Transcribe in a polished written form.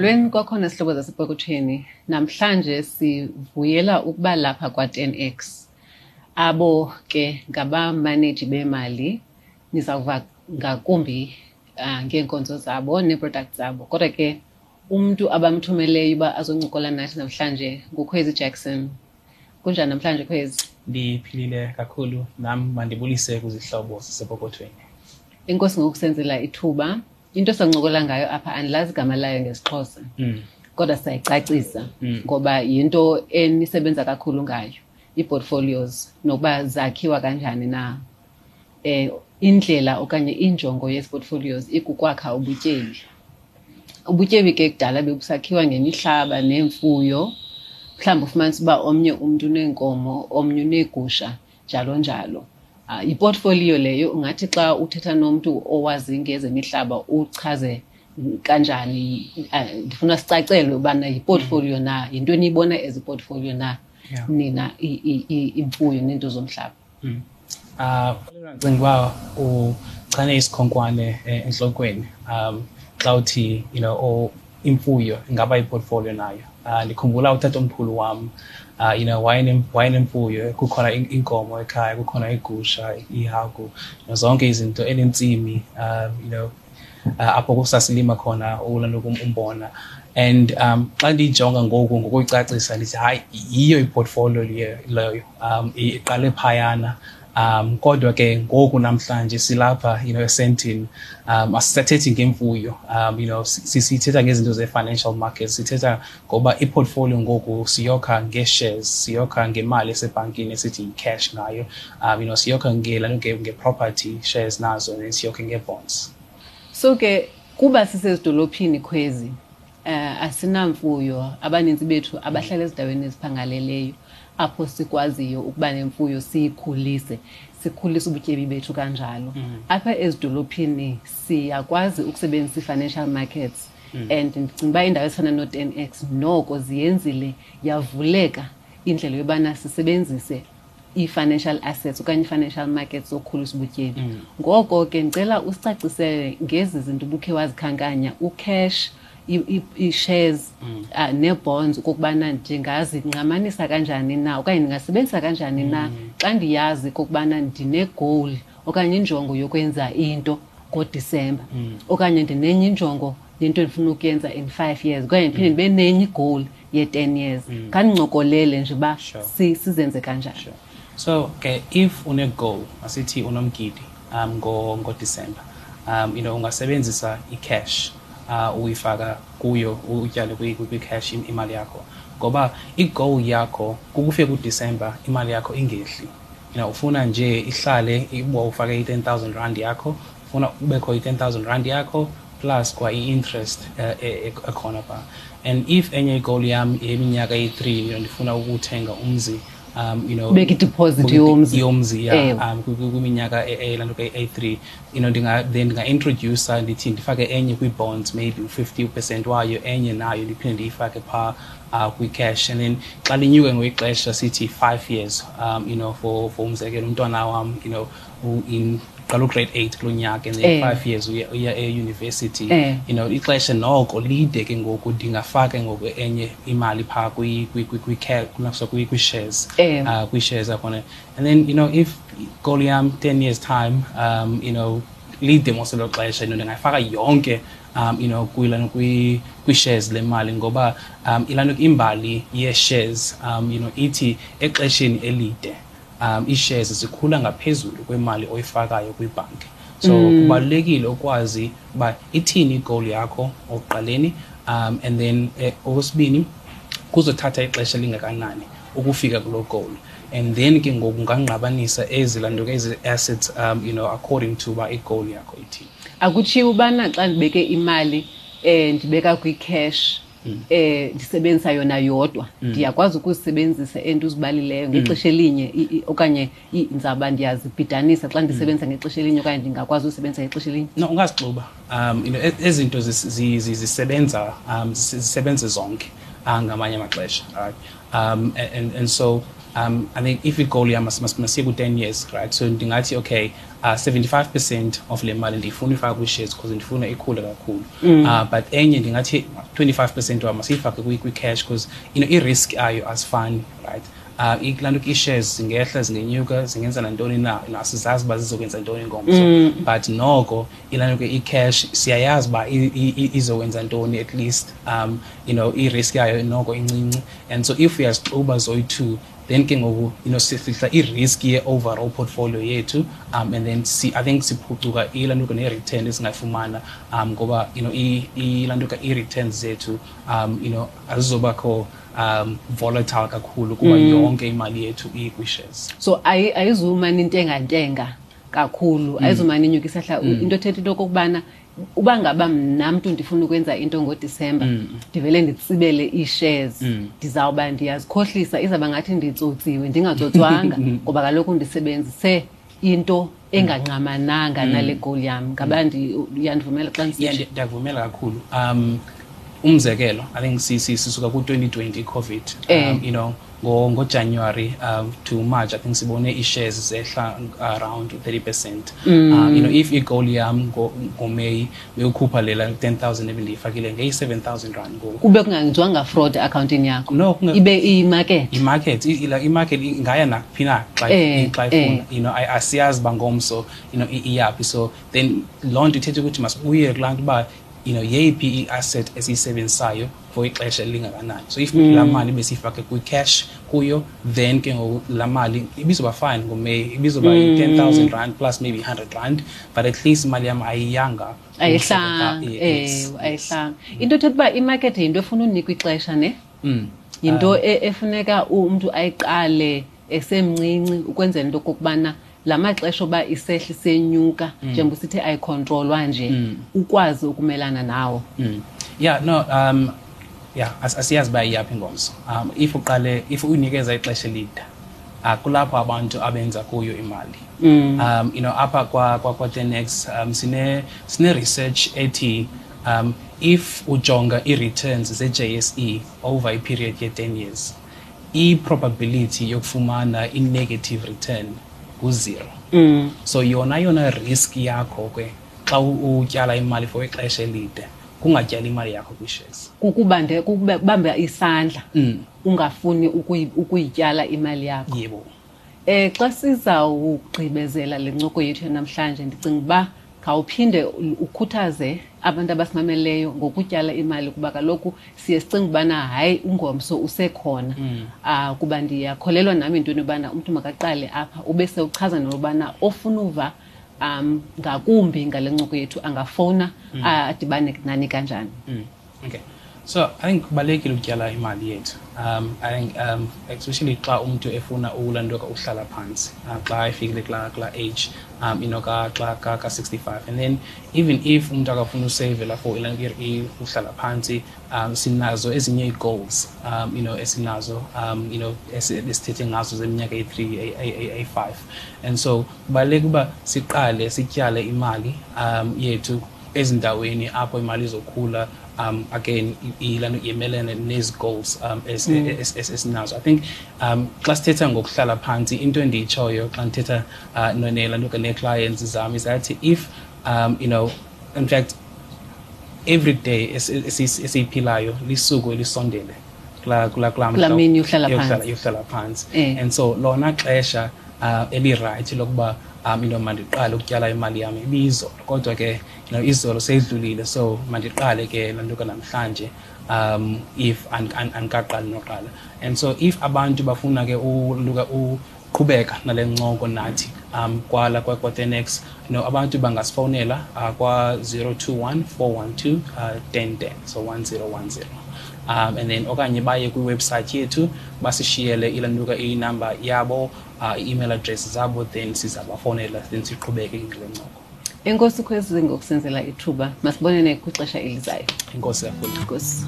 Molweni kwakhona, sihlobo zasepokothweni. Namhlanje sivuyela ukuba lapha kwa-10X. Abo ke ngabamaneji bemali, nizawuva ngakumbi ngeenkonzo zabo nee-products zabo. Kodwa ke umntu abamthumeleyo uba azoncokola nathi namhlanje nguKhwezi Jackson. Kunjani namhlanje, Khwezi? Ndiphilile kakhulu nam. Mandibulise kwizihlobo zasepokothweni. Enkosi ngokusenzela ithuba. Into esancokola ngayo apha andilazi igama layo ngesiXhosa, kodwa sayicacisa ngoba yinto enisebenza kakhulu ngayo, ii-portfolios, nokuba zakhiwa kanjani na. Indlela okanye injongo yezi portfolios ikukwakha ubutyebi. Ubutyebi ke kudala bebusakhiwa ngemihlaba neemfuyo. Mhlawumbi ufumanise uba omnye umntu uneenkomo, omnye uneegusha, njalo njalo. Yiportfolio leyo. Ungathi xa uthetha nomntu owazi ngezemihlaba uchaze kanjani? Ndifuna sicacelwe ubana yiportfolio na, yinto eniyibona as iportfolio na nina, imfuyo neento zomhlaba? Ndicinga uba uchane isikhonkwane entlokweni xa uthi imfuyo ingaba yiportfolio nayo. Ndikhumbula utatomkhulu wam, wayenemfuyo, kukhona inkomo ekhaya, kukhona igusha, ihagu, zonke izinto, enentsimi apho kusasilima khona ulantuka umbona. And xa ndiyijonga ngoku ngokuyicacisa, ndithi hayi, yiyo iportfolio leyo, iqale phayana. Kodwa ke ngoku namhlanje silapha eSandton, asisathethi ngemfuyo, sithetha ngezinto ze-financial markets. Sithetha ngoba iportfolio ngoku siyokha nge-shares, siyokha ngemali esebhankini esithi yi-cash ngayo, siyokha nge-property shares nazo, and siyokhe nge-bonds. So ke kuba sisezidolophini, Khwezi, asinamfuyo. Abaninzi bethu abahlala ezindaweni eziphangaleleyo apho sikwaziyo ukuba nemfuyo, siyikhulise, sikhulise ubutyebi bethu kanjalo. Apha ezidolophini siyakwazi ukusebenzisa ii-financial markets, and ndicinga uba iindawo ezifana no-10X noko ziyenzile yavuleka indlela yobana sisebenzise ii-financial assets okanye ii-financial markets zokukhulisa ubutyebi. Ngoko ke ndicela usicacisele ngezi zinto ubukhe wazikhankanya, ucash, ii-shares nee-bonds, okokubana ndingazingqamanisa kanjani na okanye ndingasebenzisa kanjani na xa ndiyazi okokubana ndine-goal okanye injongo yokwenza into ngoDisemba, okanye ndinenye injongo yento endifuna ukuyenza in 5 years, okanye ndiphinde ndibe nenye igoal ye-10 years. Khandincokolele nje uba sizenze kanjani. Sure. So ke if une-goal, asithi unomgidi ngoDisemba, ungasebenzisa i-cash, uyifaka kuyo, utyale kwi-cash imali yakho, ngoba i-goal yakho kukufika kuDisemba imali yakho ingehli. Ufuna nje ihlale. Uba ufake i-R10 000 yakho, ufuna kubekho i-R10 000 yakho plus kwa i-interest ekhona phaa. And if enye igoal yam yeminyaka eyi-3, ndifuna ukuthenga umzi, Ubeke ideposit yomzi. Yomzi, yeah. Ewe. Kwiminyaka elanto ke eyi-3, then ndinga-introduce, ndithi ndifake enye kwii-bonds, maybe u-50% wayo, enye nayo ndiphinde ndiyifake phaa kwi-cash. And then xa linyuke ngokwexesha, sithi 5 years, for umzekelo, umntwana wam in qala ugrade 8 kulo nyaka, and then 5 years uya e-university. Ixesha noko lide ke ngoku, ndingafaka ngoku enye imali phaa kwi-shares, kwi-shares akhona. And then if goal yam 10 years time, lide mos elo xesha, ndingayifaka yonke kwilano kwi-shares le mali, ngoba ilano imbali ye-shares ithi exesheni elide ii-shares zikhula ngaphezulu kwemali oyifakayo kwibhanki. So kubalulekile ukwazi uba ithini igoal yakho okuqaleni, and then okwesibini, kuzothatha ixesha elingakanani ukufika kuloo goal, and then ke ngoku ungangqabanisa ezi lanto ke, ezi assets, according to uba igoal yakho ithini. Akutshiwo ubana xa ndibeke imali, ndibeka kwi-cash, ndisebenzisa yona yodwa, ndiyakwazi ukuzisebenzisa ento uzibalileyo ngexesha elinye, okanye ndizawuba ndiyazibhidanisa xa ndisebenzisa ngexesha elinye, okanye ndingakwazi usebenzisa ngexesha elinye? No, ungazixuba. Ezi zinto zisebenza, zisebenze zonke ngamanye amaxesha, right? And so I think if i-goal yam masiye ku-10 years, right? So ndingathi okay, 75% of le mali ndiyifuna uyifaka kwi-shares because ndifuna ikhule kakhulu. But enye ndingathi 25% wam masiyifake kwi-cash because i-risk ayo asifani, right? Kulaa nto ii-shares zingehla, zingenyuka, zingenza nantoni na, asizazi uba zizokwenza ntoni ngomso. But noko ilaa nto ke i-cash siyayazi uba izokwenza ntoni, at least i-risk yayo noko incinci. And so if uyazixuba zoyi-two, then ke ngoku sifihla i-risk ye-overall portfolio yethu, and then I think siphucuka ilaa nto ke ne-return esingayifumana, ngoba ilaa nto ke ii-returns zethu azizobakho volatile kakhulu kuba yonke imali yethu ikwi-shares. So ayizumane intengantenga kakhulu, ayizumane inyuka isahla. Into ethetha into okokubana uba ngaba mna mntu ndifuna ukwenza into ngoDisemba, ndivele nditsibele ii-shares, ndizawuba ndiyazikhohlisa, izawuba ngathi nditsotsiwe ndingatsotswanga, ngoba kaloku ndisebenzise into engangqamananga nale goal yam. Ngaba uyandivumela xa ndisitsho? Yeah, ndiyakuvumela kakhulu. Umzekelo, I think sisuka ku-2020 COVID, ngoJanuary to March, I think sibone ii-shares zehla around 30%. If i-goal yam ngoMeyi beyokhupha lela 10,000 ebendiyifakile, ngeyi-7,000 rand ngoku. Kube kungenziwanga fraud eakhawuntini yakho. No, ibe iyimarket. I-market, i-market ingaya naphi na xa ifuna. Asiyazi uba ngomso iyaphi. So then loo nto ithetha ukuthi masibuyele kulaa nto uba yeyiphi i-asset esiyisebenzisayo for ixesha elingakanani. So if laa mali besiyifake kwi-cash kuyo, then ke ngoku laa mali ibizoba fine ngoMeyi, ibizoba yi-10,000 rand plus maybe 100 rand, but at least imali yam ayiyanga. Ayihlanga, Yes. ayihlanga. Into ethetha uba imarket yinto efuna unikwa ixesha, ne? Yinto efuneka umntu ayiqale esemncinci ukwenzela into okokubana la maxesha oba isehla isenyuka, njengoba usithi ayikhontrolwa nje, ukwazi ukumelana nawo. Yeah, no, yeah, asiyazi uba iyaphi ingomso. If uqale, if uyinikeza ixesha elide, kulapho abantu abenza kuyo imali. Apha kwa 10x, sine research ethi, if ujonga i-returns ze-JSE over a period ye 10 years, i-probability yokufumana i-negative return ngu-0. So yona risk yakho ke xa utyala imali for ixesha elide, kungatyali imali yakho kwi-shares. Kukubamba isandla, ungafuni ukuyityala imali yakho. Yebo. Xa sizawugqibezela le ncoko yethu namhlanje, ndicinga uba khawuphinde ukhuthaze abantu abasimameleyo ngokutyala imali, kuba kaloku siye sicinge ubana hayi ungomso usekhona. Kuba ndiyakholelwa nami entweni yobana umntu makaqale apha, ube sewuchaza nobana ofuna uva ngakumbi ngale ncoko yethu angafowuna, adibane nani kanjani. Okay. So I think kubalulekile ukutyala imali yethu. I think especially xa umntu efuna ulanduka uhlala phantsi, xa efikile kula age, ka, xa, ka, ka 65. And then even if umntu akafuna usavela for uhlala phantsi, sinazo ezinye ii-goals, esinazo, esithethe ngazo zeminyaka eyi-3, eyi-5. And so kubalulekile uba siqale sityale imali yethu ezindaweni apho imali izokhula. Again, ilano imelene nezi goals esinazo. I think xa sithetha ngokuhlala phantsi, into endiyitshoyo xa ndithetha nelando nee-clients zam is that if you know, in fact, every day esiyiphilayo lisuku elisondele kula Kula mhla mini yokuhlala phantsi. yokuhlala phantsi. And so lona xesha eli-right lokuba mandiqale ukutyala imali yam ibizolo, kodwa ke izolo seyidlulile, so mandiqale ke laa nto ke namhlanje, if andikaqali noqala. And so if abantu bafuna ke uqhubeka nale ncoko nathi, kwala kwa 10x, abantu bangasifowunela kwa 021 412, 1010, so 1010. And then okanye baye kwi-website yethu basishiyele ilanduka inumber yabo, i-email address zabo, then sizabafowunela, then siqhubeke ngale ncoko. Enkosi Khwezi ngokusenzela ithuba. Masibonene kwixesha elizayo. Enkosi kakhulu. Enkosi.